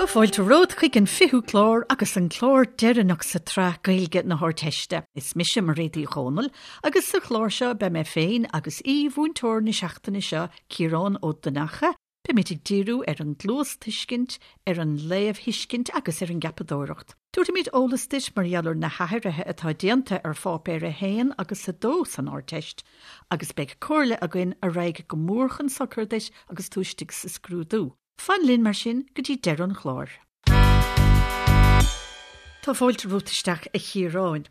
Tá fáilte romhat chuig an 20ú clár agus an clár deireanach sa tsraith Gaeilge na hArdteiste. Is mise Mairéad Uí Dhomhnaill agus sa chlár seo beidh mé féin agus aoi-mhúinteoir na seachtaine seo, Ciarán Ó Donnacha, Beimid ag díriú ar an gcluastuiscint, ar an léamhthuiscint agus ar an gceapadóireacht. Tabharfaimid eolas duit mar gheall ar na hathruithe atá déanta ar Pháipéar 1 agus 2 san Ardteist agus beidh comhairle againn a raghaidh go mór chun sochair duit agus tú istigh sa scrúdú. Fan linn mar sin go dtí deireadh an chláir. Tá fáilte romhat isteach a Chiaráin.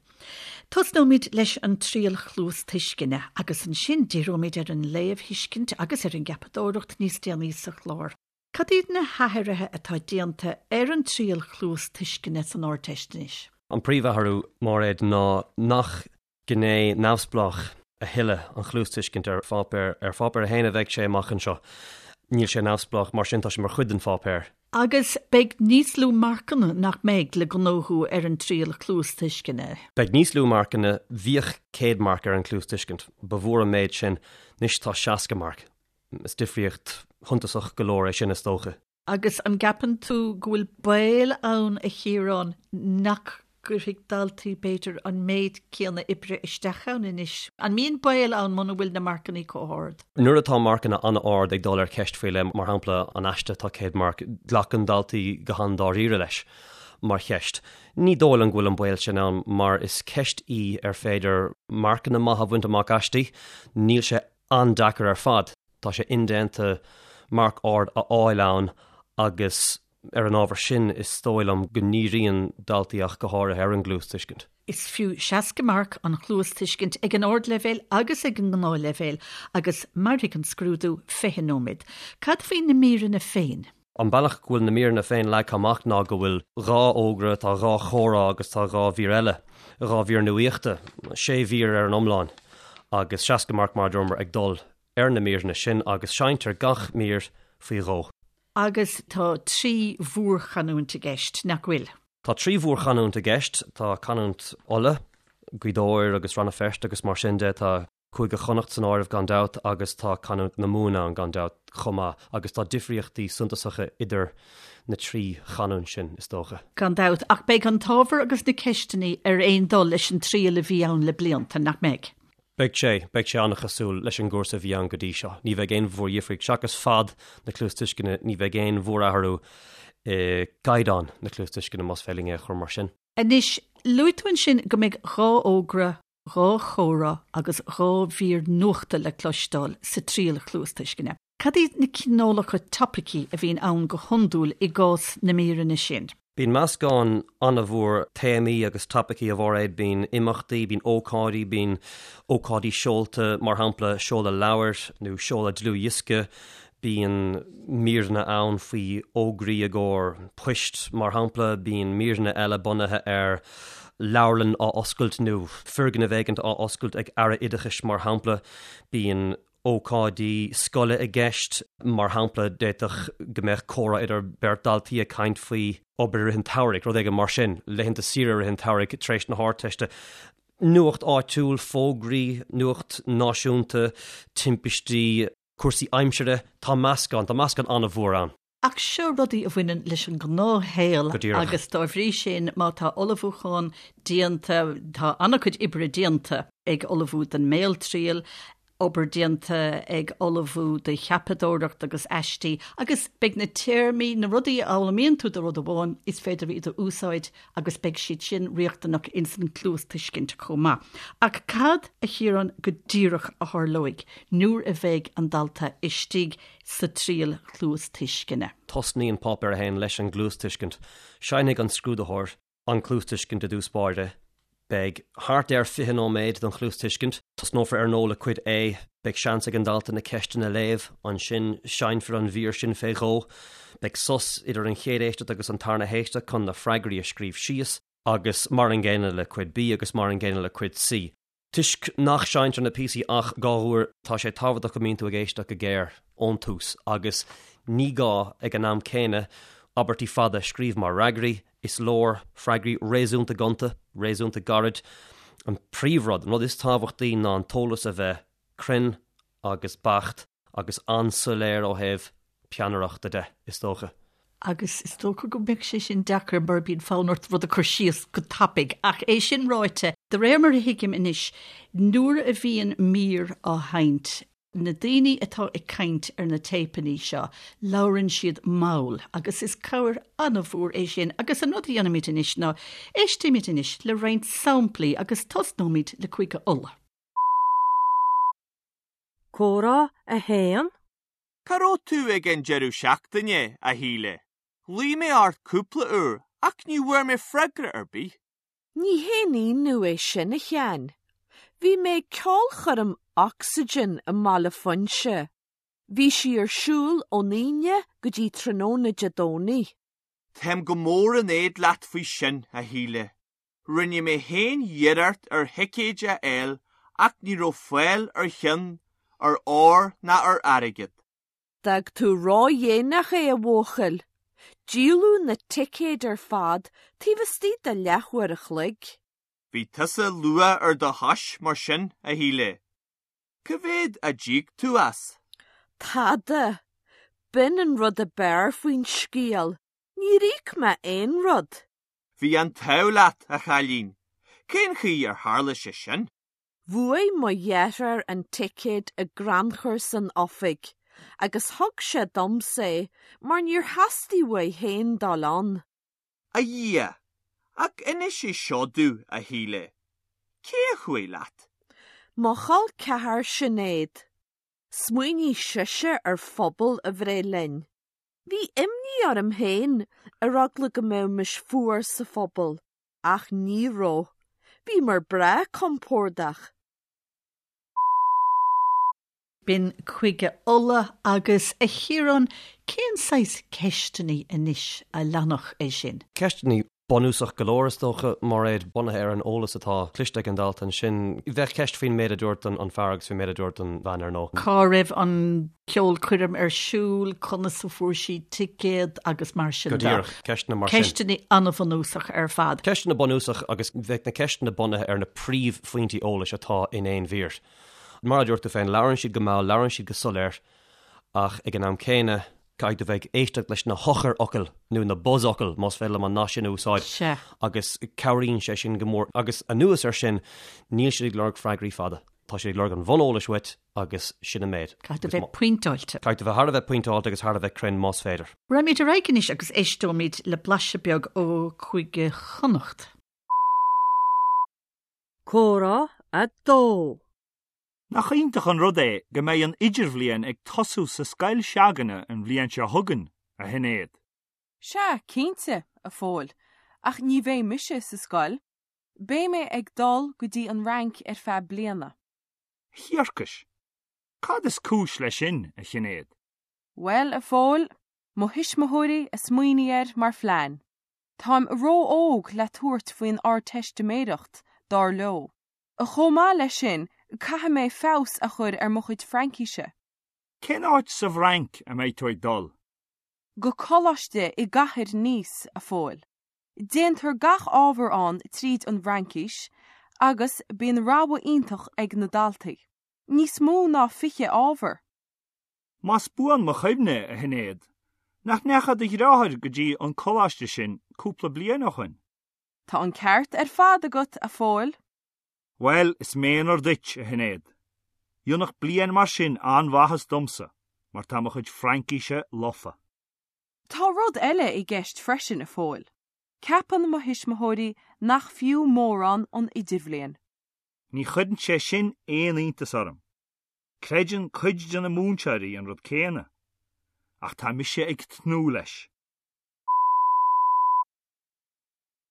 Tosnóimid leis an triail chluastuisceana agus ansin díreoimid ar an léamhthuiscint agus ar an gceapadóireacht níos déanaí sa chlár. Cad iad na hathruithe atá déanta ar an triail chluastuisceana san Ardteist anois? An príomhathrú, Máiréad, ná nach gné neamhspleách a thuilleadh an chluastuiscint ar pháipéar. Ar pháipéar 1 a bheidh sé amach anseo. Níl sé neamhspleách, mar sin tá sé mar chuid den pháipéar. Agus beidh níos lú marcanna, nach mbeidh, le gnóthú ar an triail chluastuisceana? Beidh níos lú marcanna. Bhíodh 100 marc ar an chluastuiscint. Ba mhór an méid sin. Anois tá 60 marc. Is difríocht shuntasach go leor é sin, is dócha. Agus an gceapann tú go bhfuil baol ann, a Chiaráin, nach gcuirfidh daltaí, b'fhéidir, an méid céanna oibre isteach ann anois? An mbíonn baol ann muna bhfuil na marcanna chomh hard? Nuair atá marcanna an-ard ag dul ar cheist faoi leith, mar shampla an aiste atá 100 marc, glacann daltaí go han-dáiríre leis mar cheist. Ní dóigh liom go bhfuil an baol sin ann mar is ceist í ar féidir marcanna maithe a bhaint amach aisti. Níl sé an-deacair ar fad. Tá sé indéanta marc ard a fháil ann agus ar an ábhar sin is dóigh liom go ndíríonn daltaí ach go háirithe ar an gcluastuiscint. Is fiú 60 marc an chluastuiscint ag an ardleibhéal agus ag an ngnáthleibhéal agus mairfidh an scrúdú 20 nóiméad. Cad faoi na míreanna féin? An bealach go bhfuil na míreanna féin leagtha amach ná go bhfuil 2 fhógra, tá 2 chomhrá agus tá 2 mhír eile, 2 mhír nuaíochta, 6 mhír ar an iomlán agus 60 marc mar a dúramar ag dul ar na míreanna sin agus seinntear gach mír faoi dhó. Agus tá 3 mhórchanúint i gceist, nach bhfuil? Tá 3 mhórchanúint i gceist, tá canúint Uladh, Gaoth Dobhair agus Rann na Feirste agus mar sin de, tá. Cúige Chonnacht san áireamh gan dabht agus tá canúint na Mumhan ann gan dabht chomh maith agus tá difríochtaí suntasacha idir na trí chanúint sin, is dócha. Gan dabht, ach beidh an t-ábhar agus na ceisteanna ar aon dul leis an triail a bhí ann le blianta, nach mbeidh? Beidh sé, beidh sé an-chosúil leis an gcúrsa a bhí ann go dtí seo. Ní bheidh aon mhórdhifríocht, seachas fad na cluastuisceana, ní bheidh aon mhórathrú i gcaighdeán na cluastuisceana, más féidir linn é a chur mar sin. Anois, luaigh tú ansin go mbeidh 2 fhógra 2 chomhrá agus 2 mhír nuachta le cloisteáil sa triail chluastuisceana. Cad iad na cineálacha topaicí a bhíonn ann go hiondúil i gcás na míreanna sin? Bíonn meascán an-mhór téamaí agus topaicí, a Mháiréad. Bíonn imeachtaí, bíonn ócáidí, bíonn ócáidí seolta, mar shampla seoladh leabhair nó seoladh dlúthdhiosca, Bíonn míreanna ann faoi fhógraí i gcomhair poist, mar shampla. Bíonn míreanna eile bunaithe ar leabharlann á oscailt nó foirgneamh éigint á oscailt ag Aire Oideachais, mar shampla. Bíonn ócáidí scoile i gceist, mar shampla, d'fhéadfadh go mbeadh comhrá idir beirt daltaí ag caint faoi obair i rith an tsamhraidh, rud éigin mar sin, laethanta saoire i rith an tsamhraidh tar éis na hArdteiste. Nuacht áitiúil, fógraí, nuacht náisiúnta, timpistí. cúrsaí aimsire, tá meascán, tá meascán an-mhór ann. Ach seo rudaí a bhaineann leis an ngnáthshaol agus dá bhrí sin má tá ullmhúchán déanta, tá an-chuid oibre déanta ag ullmhú don mbéaltriail, obair déanta ag ullmhú do cheapadóireacht agus aistí agus beidh na téarmaí, na rudaí a fhoghlaimíonn tú do rud amháin, is féidir iad a úsáid agus beidh siad sin riachtanach ins an chluastuiscint chomh maith. Ach cad, a Chiaráin, go díreach a tharlóidh nuair a bheidh an dalta istigh sa triail chluastuisceana? Tosnaíonn Páipéar 1 leis an gcluastuiscint. Seinnfidh an scrúdaitheoir an chluastuiscint i dtús báire. Beidh thart ar 20 nóiméad don chluastuiscint. Tosnófar ar ndóigh le Cuid A. Beidh seans ag an dalta na ceisteanna a léamh. Ansin seinnfear an mhír sin fé dhó. Beidh sos idir an chéad éisteacht agus an tarna héisteacht chun na freagraí a scríobh síos. Agus mar an gcéanna le Cuid B agus mar an gcéanna le Cuid C. Toisc nach seinntear na píosaí ach 2 uair, tá sé tábhachtach go mbíonn tú ag éisteacht go géar ón tús agus ní gá ag an am céanna abairtí fada a scríobh mar fhreagraí, is leor freagraí réasúnta gonta, réasúnta gairid. An príomhrud, an rud is tábhachtaí ná an t-eolas a bheith cruinn agus beacht agus an-soiléir ó thaobh peannaireachta de, is dócha. Agus is dócha go mbeadh sé sin deacair mar bíonn fonn ort rud a chur síos go tapaidh. Ach é sin ráite, de réir mar a thuigim anois, nuair a bhíonn mír á sheinnt, na daoine atá ag caint ar na téipeanna seo, labhrann siad mall agus is cabhair an-mhór é sin. Agus an rud a dhéanfaimid anois ná, éistfimid anois le roinnt samplaí agus tosnóimid le Cúige Uladh. Comhrá 1. Cá raibh tú ag an deireadh seachtaine, a Shíle? Ghlaoigh mé ort cúpla uair ach ní bhfuair mé freagra ar bith. Ní haon ionadh é sin, a Sheáin. Bhí mé ag ceolchoirm Oxygen i mBaile Phúinse. Bhí sí ar siúl ón Aoine go dtí tráthnóna Dé Domhnaigh. Táim go mór in éad leat faoi sin, a Shíle. Rinne mé féin iarracht ar thicéid a fháil ach ní raibh fáil ar cheann, ar ór ná ar airgead. D'fhág tú ródhéanach é, a bhuachaill. Díoladh na ticéid ar fad taobh istigh de leathuair a chloig. Bhí tusa luath ar do chois mar sin, a Shíle. Cá mhéad a d'íoc tú as? Tada. B'in an rud ab fhearr faoin scéal, níor íoc mé aon rud. Bhí an t-ádh leat, a chailín. Cén chaoi ar tharla sé sin? Bhuaigh mo dheartháir an ticéad i gcrannchur san oifig agus thug sé domsa é mar níor theastaigh uaidh féin dul ann. A Dhia! Ach inis é seo domh, a Shíle. Cé a chuaigh leat? Mo chol ceathar Sinéad. Smaoinigh sise ar phuball a bhreith linn. Bhí imní orm féin ar eagla go mbeimis fuar sa phuball. Ach ní raibh. Bhíomar breá compordach. B'in Cúige Uladh agus, a Chiaráin, cén saghas ceisteanna anois a leanfadh é sin? Ceisteanna bunúsach go leor, is dócha, Mairéad, bunaithe ar an eolas atá cloiste ag an dalta ansin. Bheadh ceist faoin méid a dúirt an fear agus faoin méid a dúirt an bhean, ar ndóigh. Cá raibh an ceolchoirm ar siúl, conas a fuair sí ticéad agus mar sin de. Go díreach, ceisteanna mar sin. Ceisteanna an-bhunúsach ar fad. Ceisteanna bunúsach agus bheadh na ceisteanna bunaithe ar na príomhphointí eolais atá in aon mhír. Mar a dúirt tú féin, labhrann siad go mall, labhrann siad go soiléir ach ag an am céanna caithfidh tú bheith ag éisteacht leis na heochairfhocail nó na buzzfhocail, más féidir liom an nath sin a úsáid, Sea. agus cabhraíonn sé sin go mór. Agus anuas air sin, níl siad ag lorg freagraí fada. Tá siad ag lorg an bhuneolais uait agus sin an méid. Caithfidh tú bheith pointeáilte. Caithfidh tú bheith thar a bheith pointeáilte agus thar a bheith cruinn más féidir. Raghaimid ar aghaidh anois agus éisteoimid le blaiseadh beag ó Chúige Chonnacht. Comhrá 2. Nach iontach an rud é go mbeidh an idirbhliain ag tosú sa scoil se'againne an bhliain seo chugainn, a Shinéad? Sea, cinnte, a Phóil, ach ní bheidh mise sa scoil. Beidh mé ag dul go dtí an Fhrainc ar feadh bliana. Thiarcais! Cad is cúis leis sin, a Shinéad? Bhuel, a Phóil, mo thuismitheoirí a smaoinigh air mar phlean. Táim ró-óg le tabhairt faoin Ardteistiméireacht, dar leo. Chomh maith leis sin, caithfidh mé feabhas a chur ar mo chuid Fraincíse. Cén áit sa bhFrainc a mbeidh tú ag dul? Go coláiste i gcathair Nice, a Phóil. Déantar gach ábhar ann tríd an bhFraincis agus bíonn rogha iontach ag na daltaí. Níos mó ná 20 ábhar! Más buan mo chuimhne, a Shinéad, nach ndeachaigh do dhreáthair go dtí an coláiste sin cúpla bliain ó shoin? Tá an ceart ar fad agat, a Phóil. Bhuel, is méanar duit, a Shinéad. Dhéanfadh bliain mar sin an-mhaitheas domsa, mar tá mo chuid Fraincíse lofa. Tá rud eile i gceist freisin, a Phóil. Ceapann mo thuismitheoirí nach fiú mórán an idirbhliain. Ní chuireann sé sin aon iontas orm. Creideann cuid de na múinteoirí an rud céanna. Ach tá mise ag tnúth leis.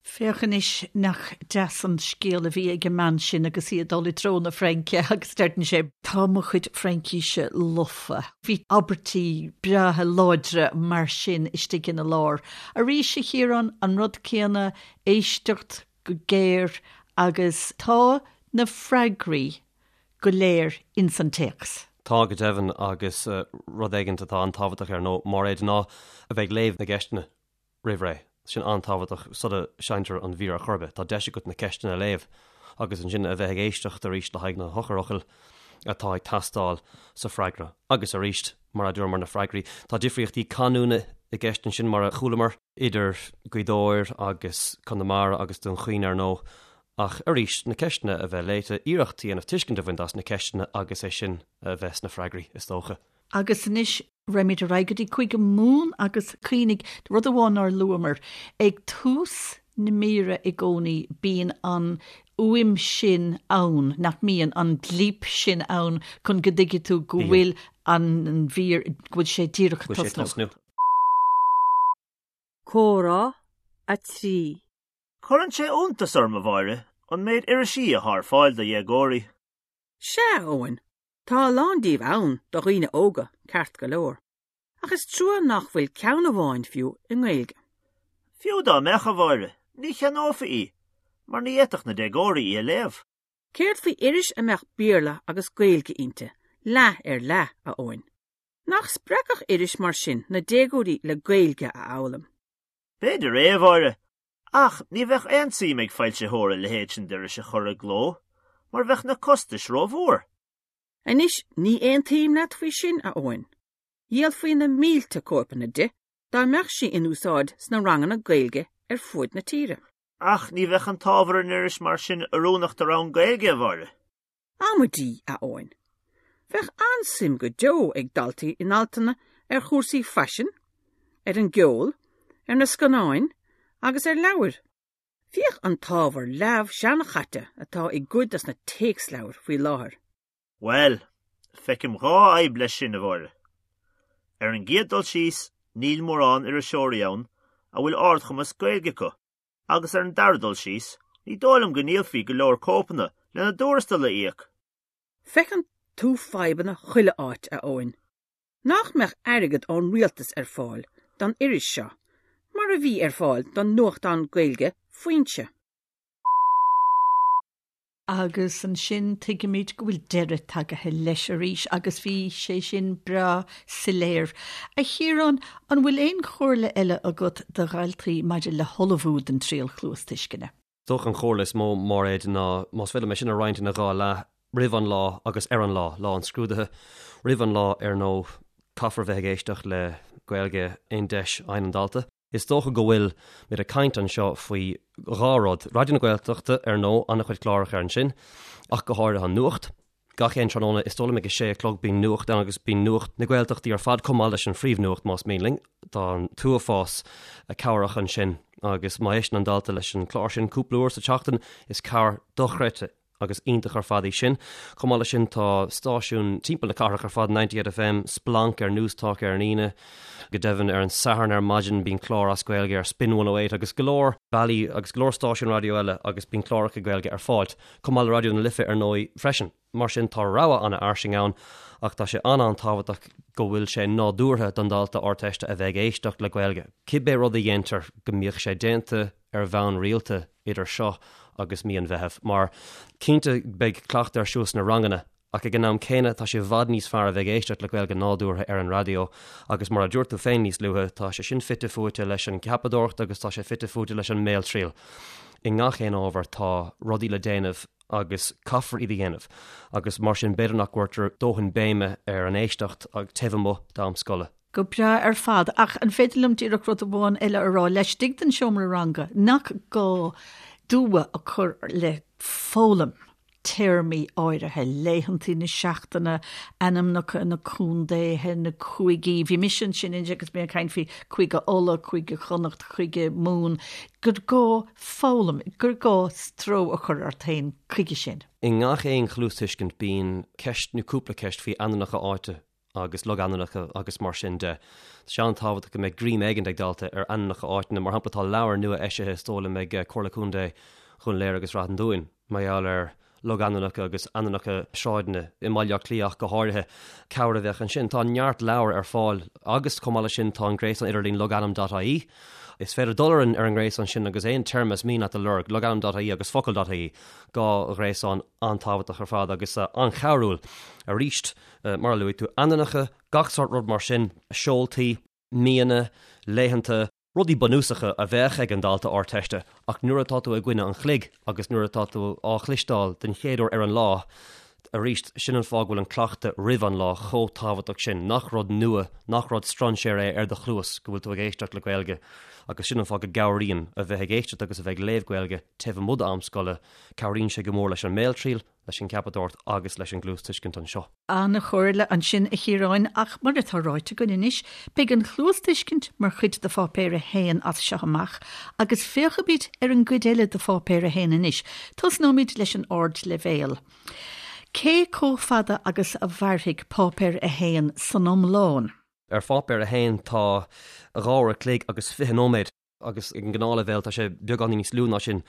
Féach anois nach deas an scéal a bhí ag an mbean sin agus í ag dul i dtreo na Fraince agus deireann sé, 'Tá mo chuid Fraincíse lofa'. Bhí abairtí breátha láidre mar sin istigh ina lár. Arís, a Chiaráin, an rud céanna, éisteacht go géar agus tá na freagraí go léir ins an téacs. Tá, go deimhin, agus rud éigin atá an-tábhachtach ar ndóigh, Máiréad, ná a bheith ag léamh na gceisteanna. roimh ré. Sin an-tábhachtach sula seinntear an mhír ar chor ar bith. Tá deis agat na ceisteanna a léamh agus ansin a bheith ag éisteacht arís le haghaidh na heochairfhocail atá ag teastáil sa freagra. Agus arís, mar a dúramar, na freagraí, tá difríochtaí canúna. i gceist ansin mar a chualamar, idir Gaoth Dobhair agus Conamara agus Dún Chaoin ar ndóigh. Ach arís, na ceisteanna a bheith léite, iarracht a dhéanamh tuiscint a bhaint as na ceisteanna agus é sin a bheith sna freagraí, is dócha. Agus anois raghaimid ar aghaidh go dtí Cúige Mumhan agus cuimhnigh, rud amháin nár luamar, ag tús na míre i gcónaí bíonn an fhuaim sin ann, nach mbíonn, an blíp sin ann chun go dtuigfidh tú go bhfuil an mhír, go bhfuil sé díreach ag tosnú. Comhrá 3. Cuireann sé iontas orm, a Mháire, an méid irisí athá ar fáil do dhéagóirí. Sea, a Eoin, tá a lán díobh ann do dhaoine óga, ceart go leor. Ach is trua nach bhfuil ceann amháin fiú i nGaeilge. Fiú dá mbeadh, a Mháire, ní cheannófaí í, mar ní fhéadfadh na déagóirí í a léamh. Céard faoi iris a mbeadh Béarla agus Gaeilge inti, leath ar leath, a Eoin? Nach spreagfadh iris mar sin na déagóirí le Gaeilge a fhoghlaim? B'fhéidir é, a Mháire, ach ní bheadh aon tsuim ag foilsitheoir a leithéid sin d'iris a chur i gcló, mar bheadh na costais rómhór. Anois, ní aontaím leat faoi sin, a Eoin. Dhíolfaí na mílte cóipeanna di dá mbeadh sí in úsáid sna ranganna Gaeilge ar fuaid na tíre. Ach ní bheadh an t-ábhar in iris mar sin oiriúnach do rang Gaeilge, a Mháire. Amaidí, a Eoin. Bheadh an-suim go deo ag daltaí in altanna ar chúrsaí faisin, ar an gceol, ar na scannáin agus ar leabhair. Féach an t-ábhar leamh seanchaite atá i gcuid dos na téacsleabhair faoi láthair. Bhuel, feicim dhá fhadhb leis sin, a Mháire. Ar an gcéad dul síos, níl mórán iriseoirí ann a bhfuil ardchumas Gaeilge acu, agus ar an dara dul síos, ní dóigh liom go ndíolfaí go leor cóipeanna lena dtuarastal a íoc. Feiceann tú fadhbanna chuile áit, a Eoin. Nach mbeadh airgead ón rialtas ar fáil don iris seo, mar a bhí ar fáil don nuachtán Gaeilge Foinse? Agus ansin tuigimid go bhfuil deireadh tagaithe leis arís agus bhí sé sin breá soiléir. A Chiaráin, an bhfuil aon chomhairle eile agat do dhaltaí maidir le hullmhú don triail chluastuisceana? Is dócha an chomhairle is mó, Máiréad, ná más féidir liom é sin a roinnt ina dhá leath, roimh an lá agus ar an lá, lá an scrúdaithe. Roimh an lá, ar ndóigh, caithfear bheith ag éisteacht le Gaeilge aon deis a fhaigheann an dalta. Is dócha go bhfuil muid ag caint anseo faoi dhá rud, Raidió na Gaeltachta, ar ndóigh, an-chuid cláracha ansin, ach go háirithe an nuacht. Gach aon tráthnóna, is dóigh liom ag a sé a chlog, bíonn nuacht ann agus bíonn nuacht na Gaeltachtaí ar fad chomh maith leis an phríomhnuacht más mian linn. Tá an t-uafás cabhrach ansin agus má éisteann an dalta leis an chlár sin cúpla uair sa tseachtain, is cabhair dochreidte agus iontach ar fad í sin. Chomh maith leis sin tá stáisiúin timpeall na cathrach ar fad, 98FM, Splanc ar Newstalk ar an Aoine, go deimhin ar an Satharn ar maidin bíonn clár as Gaeilge ar Spin 108 agus go leor bealaí agus go leor stáisiún raidió eile agus bíonn cláracha Gaeilge ar fáil. Chomh maith le Raidió na Life ar ndóigh freisin. Mar sin tá rogha an-fhairsing ann ach tá sé an-an-tábhachtach go bhfuil sé nádúrtha don dalta Ardteiste a bheith ag éisteacht le Gaeilge. Cibé rud a dhéantar go mbíodh sé déanta ar bhonn rialta idir seo agus mí an Mheithimh, mar cinnte beidh cleachtadh ar siúl sna ranganna ach ag an am céanna tá sé i bhfad níos fearr a bheith ag éisteacht le Gaeilge nádúrtha ar an raidió agus mar a dúirt tú féin níos luaithe, tá sé sin fite fuaite leis an gceapadóireacht agus tá sé fite fuaite leis an mbéaltriail. I ngach aon ábhar tá rudaí le déanamh agus caithfear iad a dhéanamh agus mar sin b'fhéidir nach gcuirtear dóthain béime ar an éisteacht taobh amuigh d'am scoile. Go breá ar fad, ach an féidir liom díreach rud amháin eile a rá, laistigh den seomra ranga, nach gá dua a chur le foghlaim téarmaí áirithe, laethantaí na seachtaine, ainmneacha na contaetha, na cúigí, bhí mise ansin inné agus mé ag caint faoi Cúige Uladh, Cúige Chonnacht, Cúige Mumhan, gur gá foghlaim, gur gá stró a chur ort féin chuige sin. I ngach aon chluastuiscint bíonn ceist nó cúpla ceist faoi ainmneacha áite agus logainmneacha agus mar sin de. Tá sé an-tábhachtach go mbeidh greim éigin ag dalta ar ainmneacha áiteanna. Mar shampla, tá leabhar nua eisithe is dóigh liom ag Comhairle Contae Dhún Laoghaire agus Rath an Dúin mar gheall ar logainmneacha agus ainmneacha sráideanna i mBaile Átha Cliath ach go háirithe. Cabhair a bheadh ansin. Tá neart leabhar ar fáil agus chomh maith leis sin tá an gréasán idirlín logainm.ie. Is féidir dul ar an ar an ngréasán sin agus aon téarma is mian leat a lorg, logainm.ie agus focal.ie, dhá ghréasán an-tábhachtach ar fad agus an-chabhrúil. Arís, Mar a luaigh tú, ainmneacha, gach sórt rud mar sin, seoltaí, míonna, laethanta, rudaí bunúsacha a bheadh ag an dalta Ardteiste ach nuair atá tú i gcoinne an chloig agus nuair atá tú á chloisteáil den chéad uair ar an lá, Arís, sin an fáth go bhfuil an cleachtadh roimh an lá chomh tábhachtach sin, nach rud nua, nach rud strainséara é ar do chluas go bhfuil tú ag éisteacht le Gaeilge agus sin an fáth go gcabhraíonn a bheith ag éisteacht agus a bheith ag léamh Gaeilge taobh amuigh d'am scoile, cabhraíonn sé go mór leis an mbéaltriail, leis an gceapadóireacht agus leis an gcluastuiscint anseo. An-chomhairle ansin, a Chiaráin, ach mar atá ráite againn anois, beidh an chluastuiscint mar chuid de Pháipéar 1 as seo amach agus féachfaimid ar an gcuid eile de Pháipéar 1 anois. Tosnóimid leis an ardleibhéal. Cé chomh fada agus a mhairfidh Páipéar 1 san iomlán? Ar Pháipéar 1 tá 2 uair a chloig agus 20 nóiméad agus ag an ngnáthleibhéal tá sé beagáinín níos lú ná sin.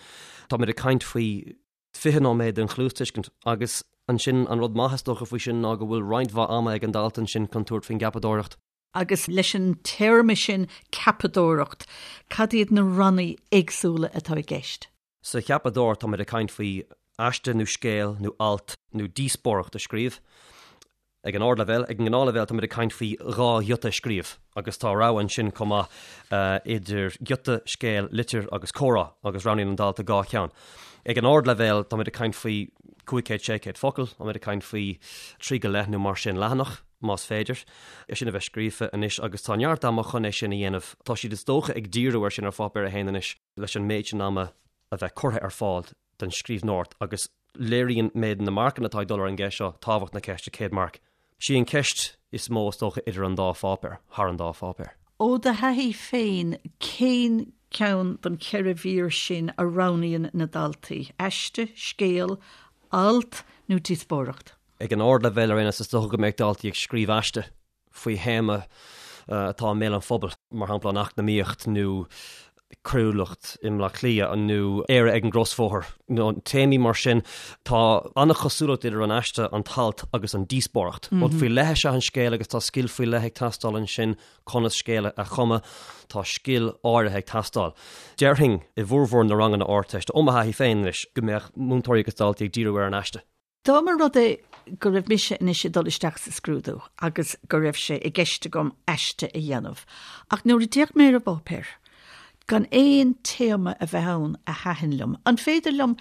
Táimid ag caint faoi 20 nóiméad den chluastuiscint agus ansin an rud maith is dócha faoi sin ná go bhfuil roinnt mhaith ama ag an dalta ansin chun tabhairt faoin gceapadóireacht. Agus leis an téarma sin ceapadóireacht, cad iad na ranna éagsúla atá i gceist? Sa cheapadóireacht táimid ag caint faoi aiste nó scéal nó alt nó díospóireacht a scríobh. Ag an ardleibhéal, ag an ngnáthleibhéal táimid ag caint faoi dhá ghiota a scríobh agus tá rogha ansin chomh maith idir giota, scéal, litir agus comhrá agus roghnaíonn an dalta dhá cheann. Ag an ardleibhéal táimid ag caint faoi 500, 600 focal, táimid ag caint faoi trí go leith nó mar sin leathanach, más féidir, é sin a bheith scríofa anois agus tá neart ama chun é sin a dhéanamh. Tá siad is dócha ag díriú air sin ar Pháipéar 1 anois leis an méid sin ama a bheith curtha ar fáil don scríbhneoireacht agus léiríonn méid na marcanna atá ag dul ar an gceist seo tábhacht na ceiste, 100 marc. Sí an cheist is mó is dócha idir an dá pháipéar, thar an dá pháipéar. Ó do thaithí féin, cén ceann den cheithre mhír sin a roghnaíonn na daltaí, aiste, scéal, alt nó díospóireacht? Ag an ardleibhéal ar aon nós is dócha go mbeadh daltaí ag scríobh aiste. faoi théama atá i mbéal an phobail, mar shampla an eacnamaíocht nó coiriúlacht i mBleá Cliath nó Éire ag an gcrosbhóthar, nó téamaí mar sin. Tá an-chosúlacht idir an aiste, an t-alt agus an díospóireacht. Rud faoi leith is ea an scéal agus tá scil faoi leith ag teastáil ansin conas scéal a chumadh. Tá scil áirithe ag teastáil. Déarfainn i bhformhór na ranganna Ardteiste, ó mo thaithí féin anois, go mbeadh múinteoirí agus daltaí ag díriú ar an aiste. Dá mba rud é go raibh mise anois ag dul isteach sa scrúdú agus go raibh sé i gceist agam aiste a dhéanamh, ach nuair a d'fhéach mé ar an bpáipéar, gan aon téama a bheith ann a thaitin liom, an féidir liom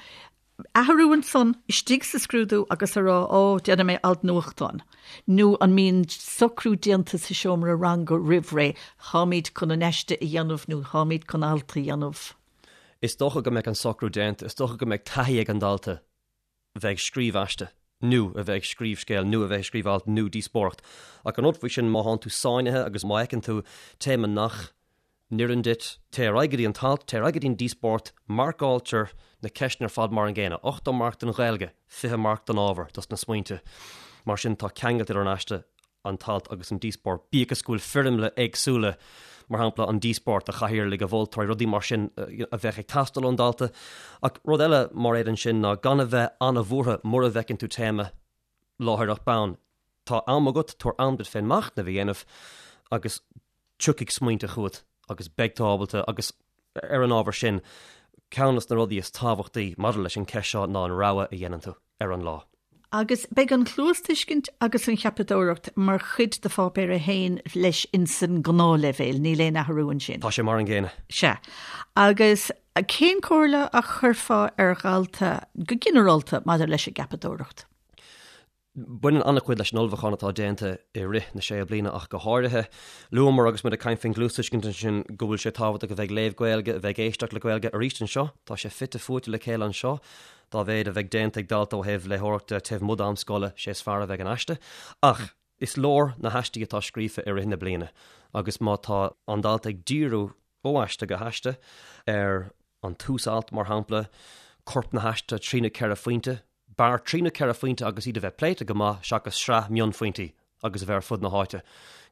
athrú ansan istigh sa scrúdú agus a rá, ó, déanfaidh mé alt nuachtáin? Nó an mbíonn socrú déanta sa seomra ranga roimh ré, táimid chun an aiste a dhéanamh nó táimid chun alt a dhéanamh? Is dócha go mbeadh an socrú déanta, is dócha go mbeadh taithí ag an dalta bheith ag scríobh aiste, nó a bheith ag scríobh scéil, nó a bheith ag scríobh alt, nó díospóireacht. Ach an rud faoi sin, má thánn tú sáinnithe agus má fheiceann tú téama nach n-oireann duit, téigh ar aghaidh go dtí an t-alt, téigh ar aghaidh go dtí an díospóireacht, marcáiltear na ceisteanna ar fad mar an gcéanna, 80 marc don Ghaeilge, 20 marc don ábhar, dos na smaointe. Mar sin, tá ceangailt idir an aiste an t-alt agus an díospóireacht, bíodh is go bhfuil foirmle éagsúla, mar shampla an díospóireacht, a chathaoirligh, a mholtóirí, rudaí mar sin a bheadh ag teastáil ón dalta. Ach rud eile, Mairéad, ansin ná gan a bheith an-bhuartha mura bhfeiceann tú téama láithreach bonn. Tá am agat, tabhair am duit féin machnamh a dhéanamh agus tiocfaidh smaointe chugat agus beidh tú ábalta agus ar an ábhar sin, ceann de na rudaí is tábhachtaí maidir leis an gceist seo ná an rogha a dhéanann tú ar an lá. Agus beidh an chluastuiscint agus an cheapadóireacht mar chuid de Pháipéar 1 leis insan ngnáthleibhéal, níl aon athrú ansin. Tá sé mar an gcéanna. Sea. Agus cén comhairle a chuirfeá ar dhalta go ginearálta maidir leis an gceapadóireacht? Baineann an-chuid leis an ullmhúchán atá déanta i rith na sé bliana ach go háirithe. Luamar agus muid ag caint faoin gcluastuiscint ansin go bhfuil sé tábhachtach a bheith ag léamh Gaeilge, a bheith ag éisteacht le Gaeilge. Arís anseo, tá sé fite fuaite le chéile anseo. Dá mhéad a bheidh déanta ag dalta ó thaobh léitheoireachta taobh amuigh d'am scoile, sé is fearr a bheidh an aiste. Ach is leor na haistí atá scríofa i rith na bliana agus má tá an dalta ag díriú ó aiste go haiste ar an tús-alt, mar shampla, corp na haiste, trí nó ceithre phointe, B'fhearr trí nó ceithre phointe agus iad a bheith pléite go maith seachas sraith mionphointí agus a bheith ar fud na háite.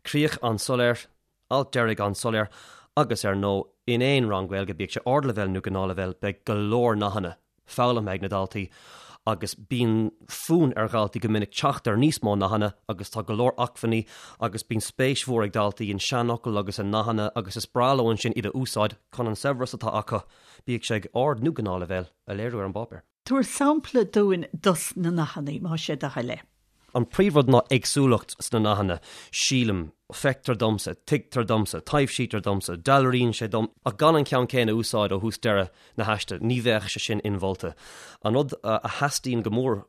Críoch an-soiléir, alt deiridh an-soiléir agus, ar ndóigh, in aon rang Gaeilge, bíodh sé ardleibhéal nó gnáthleibhéal, beidh go leor nathanna foghlamtha ag na daltaí agus bíonn fonn ar dhaltaí go minic teacht ar níos mó nathanna agus tá go leor acmhainní agus bíonn spéis mhór ag daltaí in seanfhocail agus i nathanna agus is breá leo ansin iad a úsáid chun an saibhreas atá acu, bíodh sé ag ard nó gnáthleibhéal, a léiriú ar an bpáipéar. Tabhair sampla dúinn dos na nathanna, más é do thoil é. An príomhrud ná éagsúlacht sna nathanna, sílim, feictear domsa, tuigtear domsa, taibhsítear domsa, dealraíonn sé dom, ach gan an ceann céanna a úsáid ó thús deireadh na haiste, ní bheadh sé sin inmholta. An rud a theastaíonn go mór.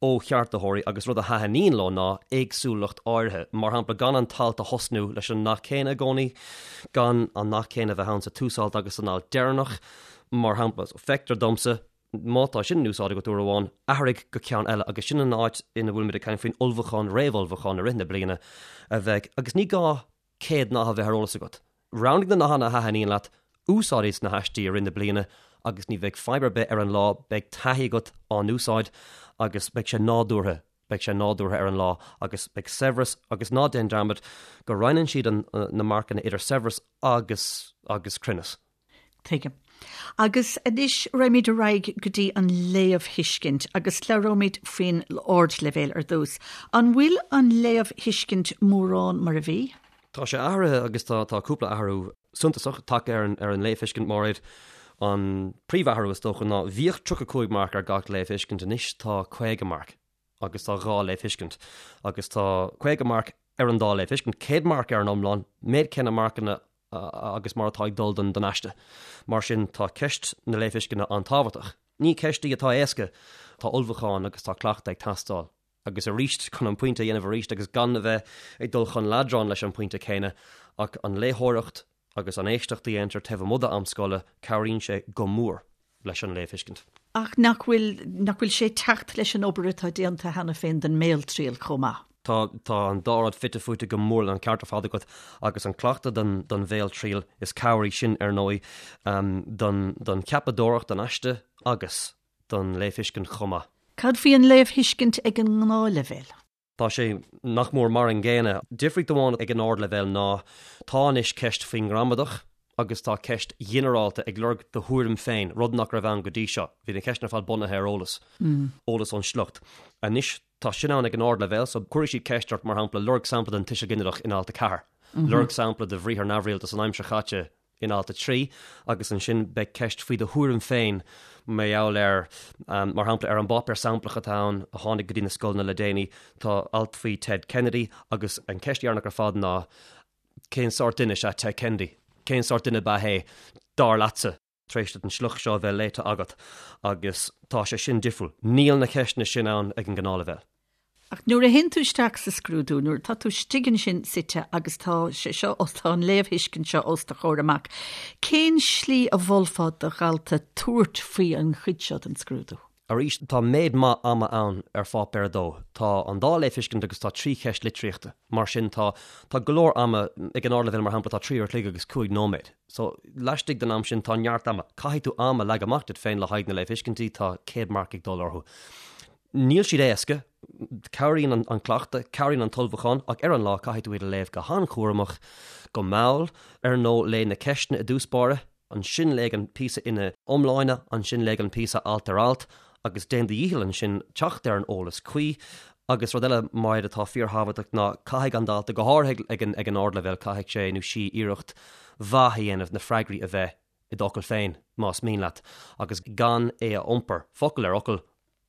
ó cheartaitheoirí agus rud a thaitníonn leo ná éagsúlacht áirithe, mar shampla gan an t-alt a thosnú leis an nath céanna i gcónaí, gan an nath céanna a bheith ann sa tús-alt agus san alt deireanach, mar shampla. So, feictear domsa, má tá sin in úsáid agat uair amháin, athraigh go ceann eile agus sin an áit ina bhfuilimid ag caint faoin ullmhúchán, réamhullmhúchán i rith na bliana a bheidh, agus ní gá 100 nath a bheith ar eolas agat. Roghnaigh na nathanna a thaitníonn leat, úsáid iad sna haistí i rith na bliana agus ní bheidh fadhb ar bith ar an lá, beidh taithí agat á n-úsáid agus beidh sé nádúrtha, beidh sé nádúrtha ar an lá agus beidh saibhreas agus ná déan dearmad go roinneann siad na marcanna idir saibhreas agus agus cruinneas. Tuigim. Agus anois raghaimid ar aghaidh go dtí an léamhthuiscint agus labhróimid faoin ardleibhéal ar dtús. An bhfuil an léamhthuiscint mórán mar a bhí? Tá sé athraithe agus tá tá cúpla athrú suntasach tagtha ar an ar an léamhthuiscint Máiréad. An príomhathrú is dócha ná bhíodh 35 marc ar gach léamhthuiscint, anois tá 50 marc. agus tá dhá léamhthuiscint, agus tá 50 marc ar an dá léamhthuiscint, 100 marc ar an iomlán, méid céanna marcanna agus mar atá ag dul don aiste. Mar sin, tá ceist na léamhthuisceana an-tábhachtach. Ní ceist í atá éasca, tá ullmhúchán agus tá cleachtadh ag teastáil. Agus arís, chun an pointe a dhéanamh arís agus gan a bheith ag dul chun leadráin leis an bpointe céanna, ach an léitheoireacht agus an éisteacht a dhéantar taobh amuigh d'am scoile, cabhraíonn sé go mór leis an léamhthuiscint. Ach nach bhfuil, nach bhfuil sé ag teacht leis an obair atá déanta cheana féin don mbéaltriail chomh maith? Tá, tá an dá rud fite fuaite go mór, an ceart ar fad agat, agus an cleachtadh don, don bhéaltriail, is cabhair í sin, ar ndóigh, don, don cheapadóireacht, don aiste agus don léamhthuiscint chomh maith. Cad faoi an léamhthuiscint ag an ngnáthleibhéal? Tá sé nach mór mar an gcéanna. Difríocht amháin ag an ardleibhéal ná tá anois ceist faoin ngramadach agus tá ceist ghinearálta ag lorg do thuairim féin, rud nach raibh ann go dtí seo. Bhí na ceisteanna ar fad bunaithe ar eolas, eolas ón sliocht. Anois tá sin ann ag an ardleibhéal so cuirfidh siad ceist ort, mar shampla, lorg sampla den tuiseal ginideach in alt 4, lorg sampla de bhriathar neamhrialta san aimsir chaite in alt 3 agus ansin beidh ceist faoi do thuairim féin mar gheall ar, mar shampla, ar an bpáipéar samplach atá ann a tháinig go dtí na scoileanna le déanaí, tá alt faoi Ted Kennedy agus an cheist dheireanach ar fad ná cén sórt duine is ea Ted Kennedy? Cén sórt duine ab ea é, dar leatsa? tar éis duit an sliocht seo a bheith léite agat agus tá sé sin difriúil. Níl na ceisteanna sin ann ag an ngnáthleibhéal. Ach nuair a théann tú isteach sa scrúdú, nuair atá tú istigh ansin suite agus tá sé seo, tá an léamhthuiscint seo os do chomhair amach, cén slí a mholfá do dhalta tabhairt faoi an chuid seo den scrúdú? Arís, tá méid maith ama ann ar pháipéar 2. Tá an dá léamhthuiscint agus tá trí cheist litríochta. Mar sin, tá, tá go leor ama, ag an ardleibhéal mar shampla, tá trí uair a chloig agus cúig nóiméad. So, laistigh den am sin, tá neart ama. Caithfidh tú am a leagan amach duit féin le haghaidh na léamhthuiscintí, tá 100 marc ag dul orthu. Níl siad éasca, cabhraíonn an cleachtadh, cabhraíonn an t-ullmhúchán, ach ar an lá caithfidh tú iad a léamh go han-chúramach, go mall, ar ndóigh léigh na ceisteanna i dtús báire, ansin léigh an píosa ina iomláine, ansin léigh an píosa alt ar alt, agus déan do dhícheall ansin teacht ar an eolas cuí. Agus rud eile, Máiréad, atá fíorthábhachtach ná caithfidh an dalta, go háirithe ag an ag an ardleibhéal, caithfidh sé nó sí iarracht mhaith a dhéanamh na freagraí a bheith i d'fhocail féin, más mian leat, agus gan é a iompar, focal ar fhocal,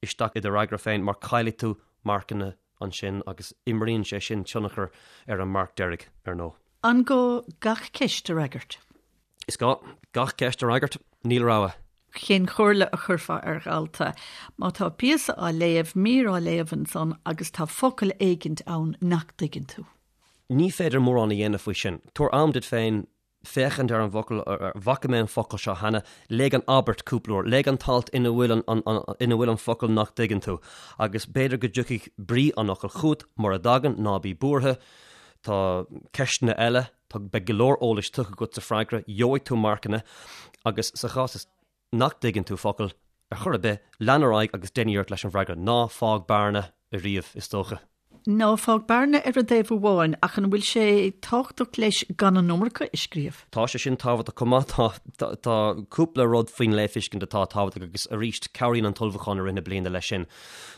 isteach i do fhreagra féin mar caillfidh tú marcanna ansin agus imríonn sé sin tionchar ar an marc deiridh, ar ndóigh. An gá gach ceist a fhreagairt? Is gá gach ceist a fhreagairt, níl rogha. Cén chomhairle a chuirfeá ar dhalta má tá píosa á léamh, mír á léamh ansan agus tá focal éigint ann nach dtuigeann tú? Ní féidir mórán a dhéanamh faoi sin. Tabhair am duit féin féachaint ar an bhfocal, bhfaca mé an focal seo cheana, léigh an abairt cúpla uair, léigh an t-alt ina bhfuil an, ina bhfuil an focal nach dtuigeann tú, agus b'fhéidir go dtiocfaidh brí an fhocail chugat, mura dtagann, ná bí buartha, tá ceisteanna eile, tá, beidh go leor eolais tugtha agat sa freagra, gheobhaidh tú marcanna, agus sa chás is nach dtuigeann tú focal ar chor ar bith, lean ar aghaidh agus déan iarracht leis an bhfreagra. Ná fág bearna ariamh, is dócha. Ná fág bearna ar an dtaobh amháin, ach an bhfuil sé tábhachtach leis gan an iomarca a scríobh? Tá sé sin tábhachtach chomh maith. Tá, tá cúpla rud faoin léamhthuiscint atá tábhachtach agus arís cabhraíonn an t-ullmhúchán i rith na bliana leis sin.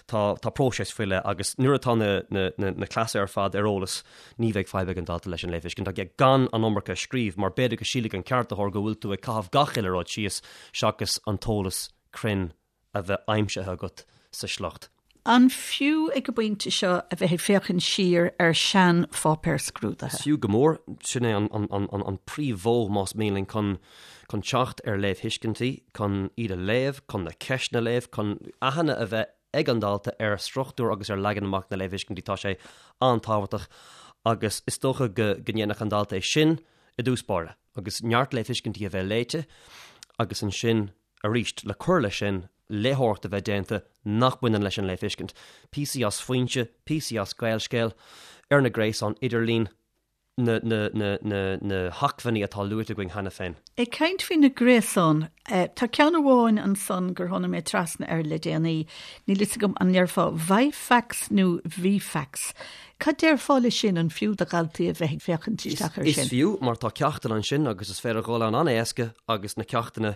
Tá, tá próiseas faoi leith agus nuair atá na, na, na, na cleasa ar fad ar eolas, ní bheidh fadhb ag an dalta leis an léamhthuiscint ach gan an iomarca a scríobh mar b'fhéidir go sílfidh an ceartaitheoir go bhfuil tú ag caitheamh gach uile rud síos seachas an t-eolas cruinn a bheith aimsithe agat sa sliocht. An fiú ag an bpointe seo a bheith ag féachaint siar ar shean-pháipéir scrúdaithe? Is fiú go mór. Sin é an príomh-mhodh, más mian linn, chun teacht ar léamhthuiscintí, chun iad a léamh, chun na ceisteanna a léamh, chun aithne a bheith. ag an dalta ar struchtúr agus ar leagan amach na léamhthuiscintí, tá sé an-tábhachtach agus is dócha go ndéanfadh an dalta é sin i dtús báire agus neart léamhthuiscintí a bheith léite agus ansin arís le cur leis sin léitheoireacht a bheith déanta nach mbaineann leis an léamhthuiscint. Píosaí as Foinse, píosaí as Gaelscéal, ar na gréasáin idirlín, na, na, na, na, na hacmhainní atá luaite againn cheana féin. Ag caint faoi na gréasáin, tá ceann amháin ansan gur tháinig mé trasna air le déanaí, níl fhios agam an ndéarfá Vifax nó Vifax. Cad déarfá le sin, an fiú do dhaltaí a bheith ag féachaint isteach air sin? Is fiú, mar tá ceachtanna ansin agus is féidir dhul ann an-éasca agus na ceachtanna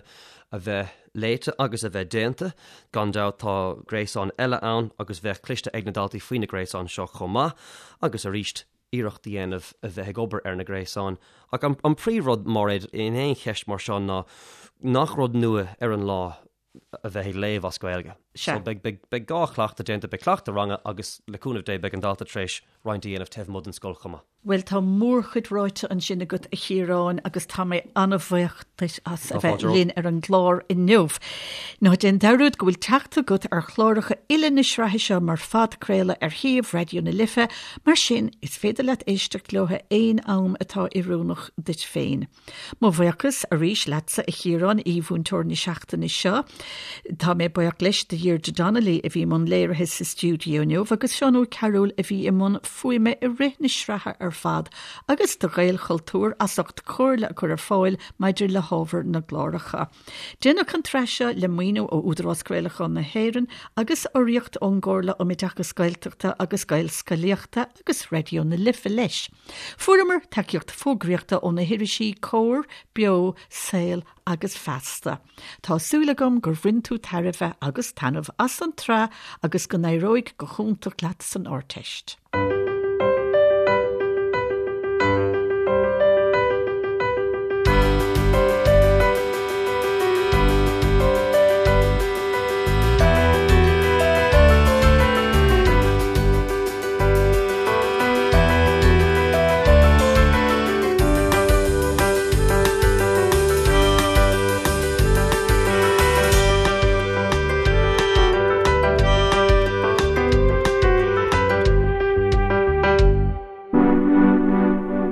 a bheith léite agus a bheith déanta. Gan dabht tá gréasáin eile ann agus bheadh cloiste ag na daltaí faoi na gréasáin seo chomh maith agus arís iarracht a dhéanamh a bheith ag obair ar na gréasáin. Ach an príomhrud, Máiréad, in aon cheist mar seo ná nach rud nua ar an lá a bheith ag léamh as Gaeilge. So beidh, beidh, beidh gá cleachtadh déanta, beidh cleachtadh ranga agus le cúnamh Dé beidh an dalta tar éis roinnt a dhéanamh taobh amuigh den scoil chomh maith. Bhuel, tá mórchuid ráite ansin agat, a Chiaráin, agus tá mé an-bhuíoch duit as a bheith linn ar an gclár inniu. Ná déan dearúd go bhfuil teacht agat ar chláracha uile na sraithe seo mar phodchraoladh ar shuíomh Raidió na Life, mar sin is féidir leat éisteacht leo aon am atá oiriúnach duit féin. Mo bhuíochas arís leatsa a Chiaráin, aoi-mhúinteoir na seachtaine seo. Tá mé buíoch leis de Dheirdre Donnelly a bhí i mbun léirithe sa stiúideo inniu agus Seán Ó Cearúil a bhí i mbun fuaime i rith na sraithe ar fad agus do Ghaelchultúr as ucht comhairle a chur ar fáil maidir le hábhar na gcláracha. Déanadh an tsraith seo le maoiniú ó Údarás Craolacháin na hÉireann agus urraíocht ón gComhairle um Oideachas Gaeltachta agus Gaelscolaíochta agus Raidió na Life leis. Fuaireamar tacaíocht fógraíochta ó na hirisí Comhar, Beo, Saol agus Feasta. Tá súil agam gur bhain tú tairbhe agus taitneamh as an tsraith agus go n-éireoidh go hiontach leat san Ardteist.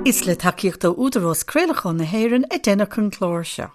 Is le tacaíocht ó Údarás Craolacháin na hÉireann a deineadh an clár seo.